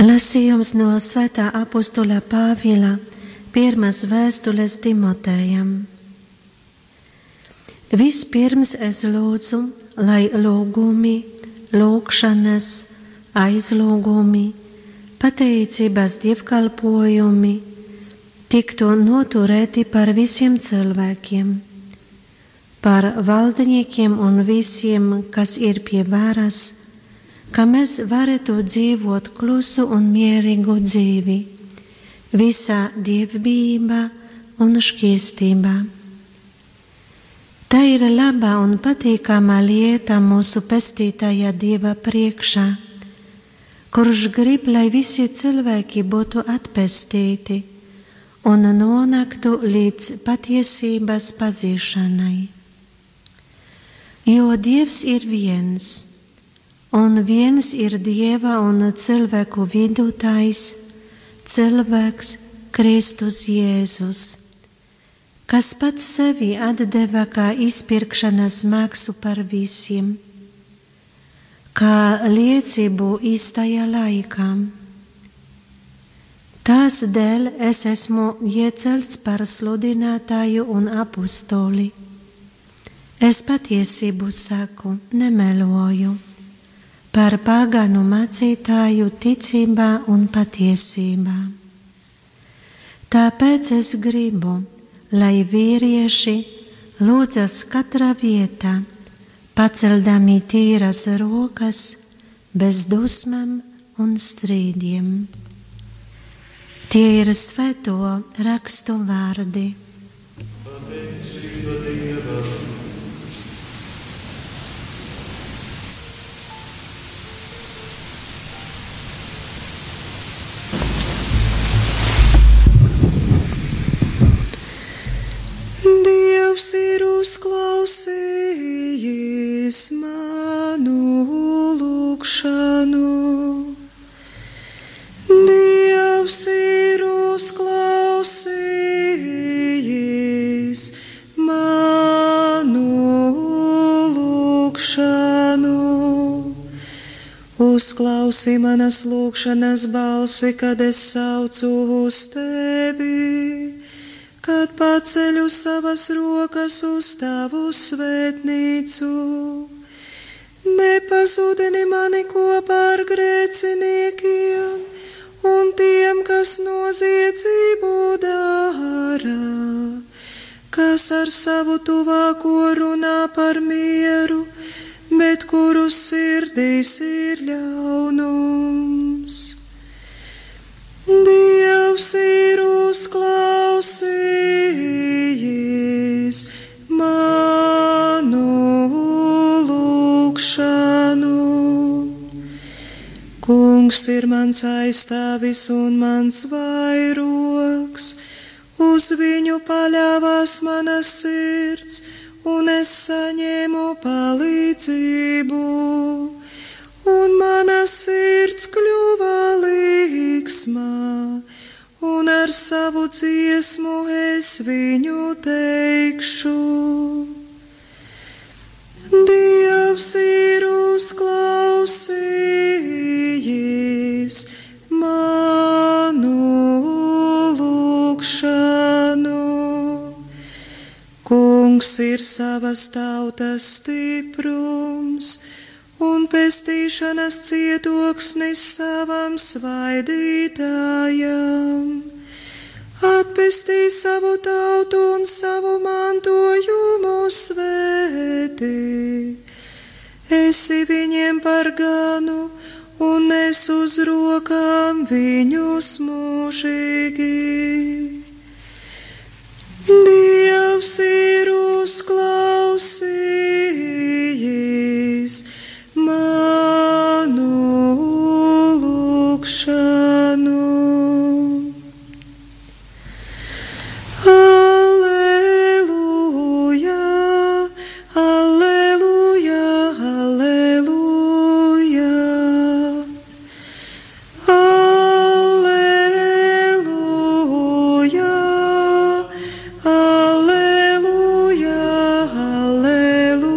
Lasījums no svētā apostola Pāvila pirmās vēstules Timotejam. Vispirms es lūdzu, lai lūgumi, lūgšanas, aizlūgumi, pateicības dievkalpojumi tiktu noturēti par visiem cilvēkiem, par valdniekiem un visiem, kas ir pie varas, ka mēs varētu dzīvot klusu un mierīgu dzīvi, visā dievbijībā un šķīstībā. Tā ir laba un patīkama lieta mūsu pestītāja Dieva priekšā, kurš grib, lai visi cilvēki būtu atpestīti un nonāktu līdz patiesības pazīšanai. Jo Dievs ir viens, un viens ir Dieva un cilvēku vidutājs, cilvēks Kristus Jēzus, kas pats sevi atdeva kā izpirkšanas maksu par visiem, kā liecību īstajā laikā. Tās dēļ es esmu iecelts par sludinātāju un apostoli. Es patiesību saku, nemeloju, par pagānu mācītāju ticībā un patiesībā. Tāpēc es gribu, lai vīrieši lūdzas katrā vietā, paceldami tīras rokas, bez dusmām un strīdiem. Tie ir svēto rakstu vārdi. Dievs ir uzklausījis manu lūgšanu. Dievs ir uzklausījis manu lūgšanu. Uzklausi manas lūgšanas balsi, kad es saucu uz tevi, kad paceļu savas rokas uz tavu svētnīcu. Nepazudini mani kopā ar grēciniekiem un tiem, kas noziedzību dara, kas ar savu tuvāko runā par mieru, bet kuru sirdīs ir ļaunums. Dievs ir uzklausījis manu lūgšanu. Kungs ir mans aizstāvis un mans vairogs, uz viņu paļāvās mana sirds, un es saņēmu palīdzību, un mana sirds kļuva līgsma, un ar savu dziesmu es viņu teikšu. Dievs ir uzklausījis manu lūgšanu. Kungs ir savas tautas stiprums un pestīšanas cietoksnis savam svaidītājam. Atpestī savu tautu un savu mantojumu svētī. Esi viņiem par ganu un nes uz rokām viņus mūžīgi. Dievs ir uzklausījis manu lūgšanu. Alleluja, alleluja, alleluja. Alleluja, alleluja, alleluja.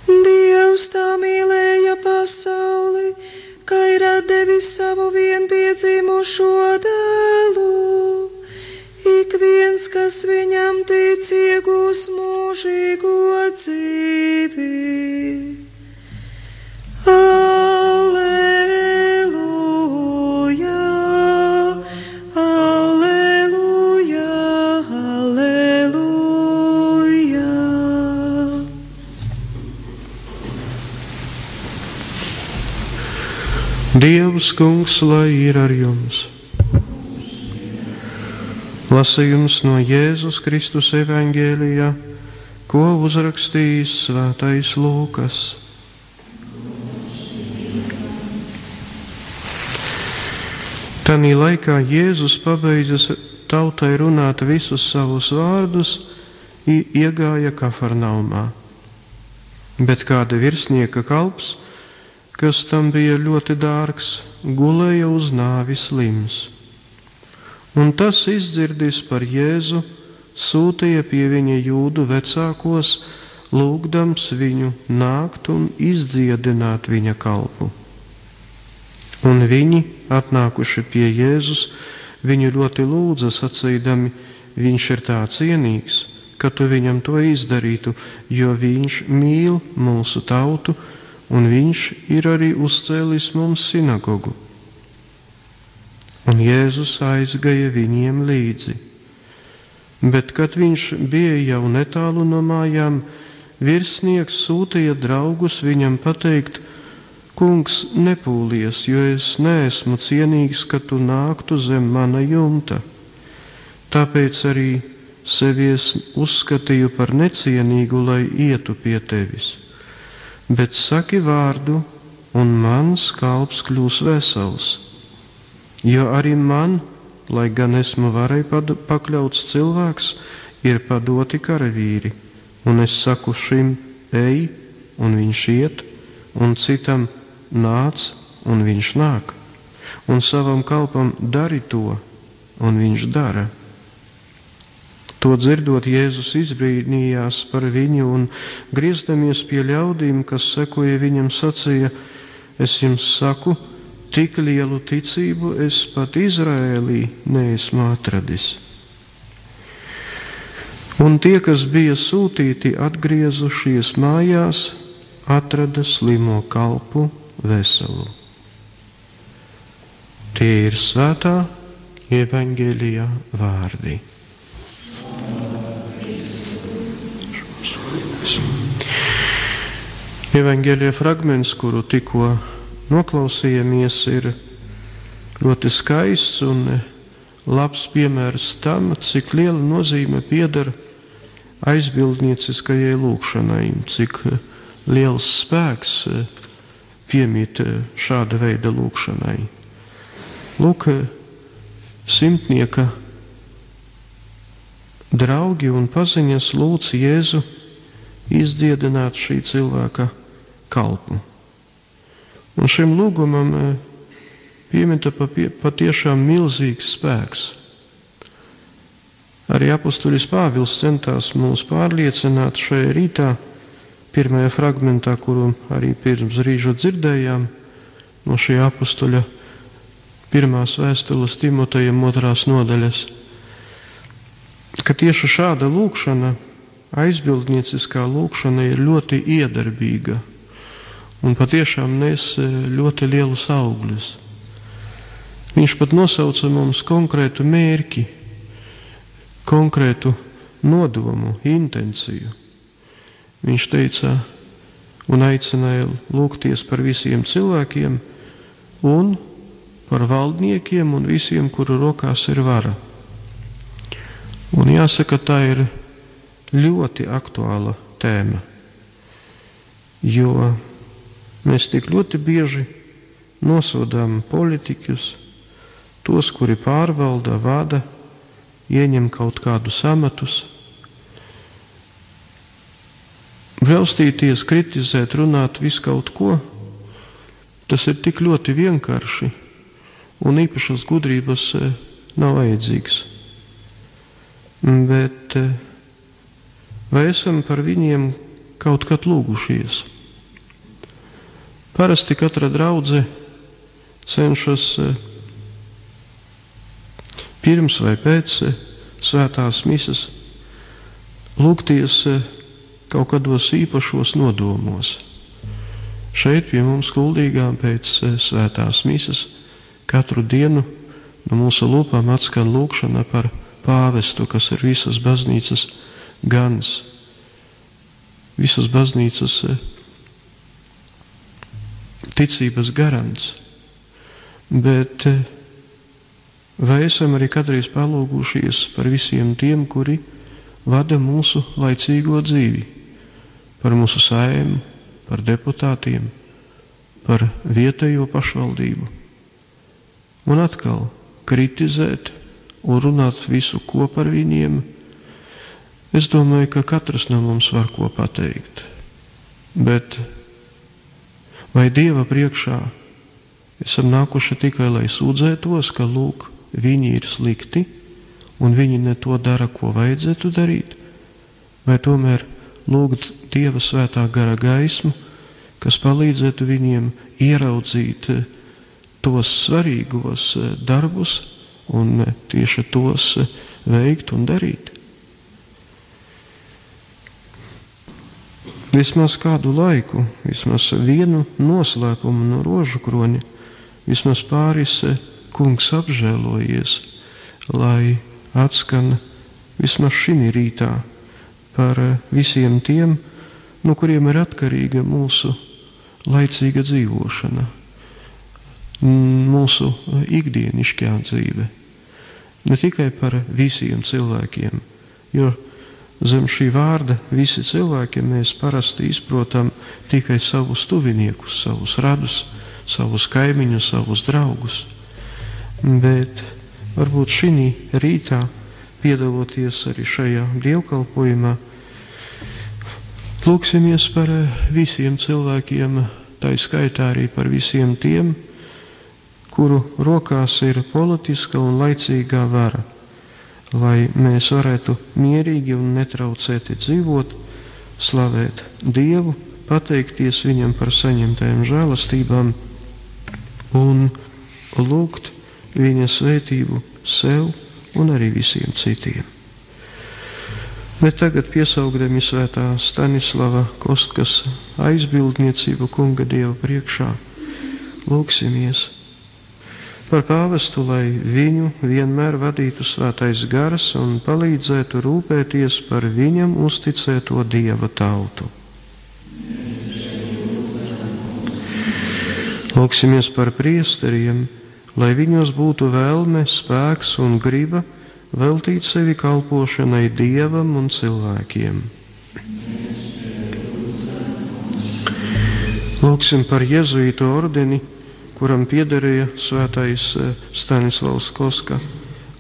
Dievs tā mīlēja pasauli, savu vienpiedzimušo dēlu, ik viens, kas viņam tic, iegūs mūžīgo dzīvi. Alleluja, alleluja, alleluja. Dievs, Kungs, lai ir ar jums. Lasījums no Jēzus Kristus evaņģēlijā, ko uzrakstījis svētais Lūkas. Tanī laikā Jēzus pabeidzis tautai runāt visus savus vārdus, iegāja Kafarnaumā. Bet kāda virsnieka kalps, kas tam bija ļoti dārgs, gulēja uz nāvi slims. Un tas, izdzirdis par Jēzu, sūtīja pie viņa jūdu vecākos, lūgdams viņu nākt un izdziedināt viņa kalpu. Un viņi, atnākuši pie Jēzus, viņu ļoti lūdza, sacīdami, viņš ir tā cienīgs, ka tu viņam to izdarītu, jo viņš mīl mūsu tautu, un viņš ir arī uzcēlis mums sinagogu. Un Jēzus aizgāja viņiem līdzi. Bet, kad viņš bija jau netālu no mājām, virsnieks sūtīja draugus viņam pateikt: Kungs, nepūlies, jo es neesmu cienīgs, ka tu nāktu zem mana jumta. Tāpēc arī sevi es uzskatīju par necienīgu, lai ietu pie tevis. Bet saki vārdu, un mans kalps kļūs vesels. Jo arī man, lai gan esmu varai pakļauts cilvēks, ir padoti karavīri, un es saku šim ej, un viņš iet, un citam nāc, un viņš nāk, un savam kalpam dari to, un viņš dara. To dzirdot, Jēzus izbrīnījās par viņu un, griezdamies pie ļaudīm, kas sekoja viņam, sacīja: Es jums saku, tik lielu ticību es pat Izraēlī neesmu atradis. Un tie, kas bija sūtīti, atgriezušies mājās, atrada slimo kalpu veselu. Tie ir svētā evaņģēlijā vārdi. Evaņģēlijā fragments, kuru tikko noklausījāmies, ir ļoti skaists un labs piemērs tam, cik liela nozīme pieder aizbildnieciskajai lūgšanai, cik liels spēks piemīt šāda veida lūgšanai. Lūk, simtnieka draugi un paziņas lūdz Jēzu izdziedināt šī cilvēka kalpu. Un šim lūgumam piemita patiešām milzīgs spēks. Arī apustulis Pāvils centās mūs pārliecināt šajā rītā, pirmajā fragmentā, kuru arī pirms brīža dzirdējām, no šī apustuļa pirmās vēstules Timotejam 2. nodaļas, ka tieši šāda lūgšana, aizbildnieciskā lūgšana, ir ļoti iedarbīga un patiešām nes ļoti lielus augļus. Viņš pat nosauca mums konkrētu mērķi, konkrētu nodomu, intenciju. Viņš teica un aicināja lūgties par visiem cilvēkiem un par valdniekiem un visiem, kuru rokās ir vara. Un jāsaka, tā ir ļoti aktuāla tēma, jo mēs tik ļoti bieži nosodām politiķus, tos, kuri pārvalda, vada, ieņem kaut kādus amatus. Braustīties, kritizēt, runāt visu kaut ko, tas ir tik ļoti vienkārši un īpašas gudrības nav vajadzīgs. Bet vai esam par viņiem kaut kad lūgušies? Parasti katra draudze cenšas pirms vai pēc svētās misas lūgties kaut kādos īpašos nodomos. Šeit pie mums Kuldīgā pēc svētās misas katru dienu no mūsu lūpām atskan lūgšana par pāvestu, kas ir visas baznīcas gans, visas baznīcas ticības garants. Bet vai esam arī kādreiz palūgušies par visiem tiem, kuri vada mūsu laicīgo dzīvi, par mūsu Saeimu, par deputātiem, par vietējo pašvaldību? Un atkal kritizēt un runāt visu, ko par viņiem. Es domāju, ka katrs no mums var ko pateikt. Bet vai Dieva priekšā esam nākuši tikai, lai sūdzētos, ka lūk, viņi ir slikti un viņi ne to dara, ko vajadzētu darīt? Vai tomēr lūgt Dieva svētā gara gaismu, kas palīdzētu viņiem ieraudzīt tos svarīgos darbus un tieši tos veikt un darīt? Vismaz kādu laiku, vismaz vienu noslēpumu no rožu kroņa, vismaz pāris kungs apžēlojies, lai atskan vismaz šī rītā par visiem tiem, no kuriem ir atkarīga mūsu laicīga dzīvošana, mūsu ikdienišķā dzīve. Ne tikai par visiem cilvēkiem, jo zem šī vārda visi cilvēki mēs parasti izprotam tikai savus tuviniekus, savus radus, savus kaimiņus, savus draugus. Bet varbūt šī rītā, piedaloties arī šajā dievkalpojumā, lūksimies par visiem cilvēkiem, tā skaitā arī par visiem tiem, kuru rokās ir politiska un laicīgā vara, lai mēs varētu mierīgi un netraucēti dzīvot, slavēt Dievu, pateikties Viņam par saņemtajām žēlastībām un lūgt Viņa svētību sev un arī visiem citiem. Bet tagad piesaugdami svētā Stanislava Kostkas aizbildniecību kunga Dieva priekšā, lūksimies par pāvestu, lai viņu vienmēr vadītu svētais gars un palīdzētu rūpēties par viņam uzticēto Dieva tautu. Lūksimies par priesteriem, lai viņos būtu vēlme, spēks un griba veltīt sevi kalpošanai Dievam un cilvēkiem. Lūksim par jezuītu ordeni, kuram piederēja svētais Stanislavs Koska,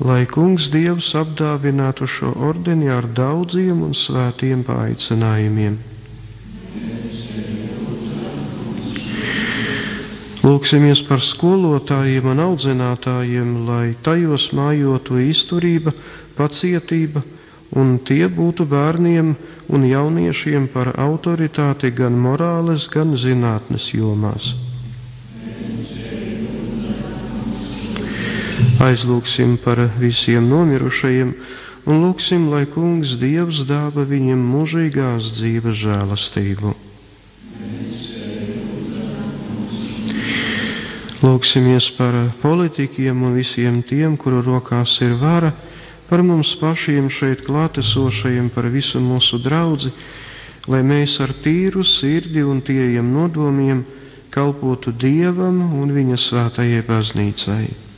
lai kungs Dievs apdāvinātu šo ordeni ar daudziem un svētiem paaicinājumiem. Lūksimies par skolotājiem un audzinātājiem, lai tajos mājotu izturība, pacietība, un tie būtu bērniem un jauniešiem par autoritāti gan morāles, gan zinātnes jomās. Aizlūksim par visiem nomirušajiem un lūksim, lai kungs Dievs dāva viņiem mūžīgās dzīves žēlastību. Lūksimies par politikiem un visiem tiem, kuru rokās ir vara, par mums pašiem šeit klātesošajiem, par visu mūsu draudzi, lai mēs ar tīru sirdi un tīriem nodomiem kalpotu Dievam un viņa svētajai baznīcai.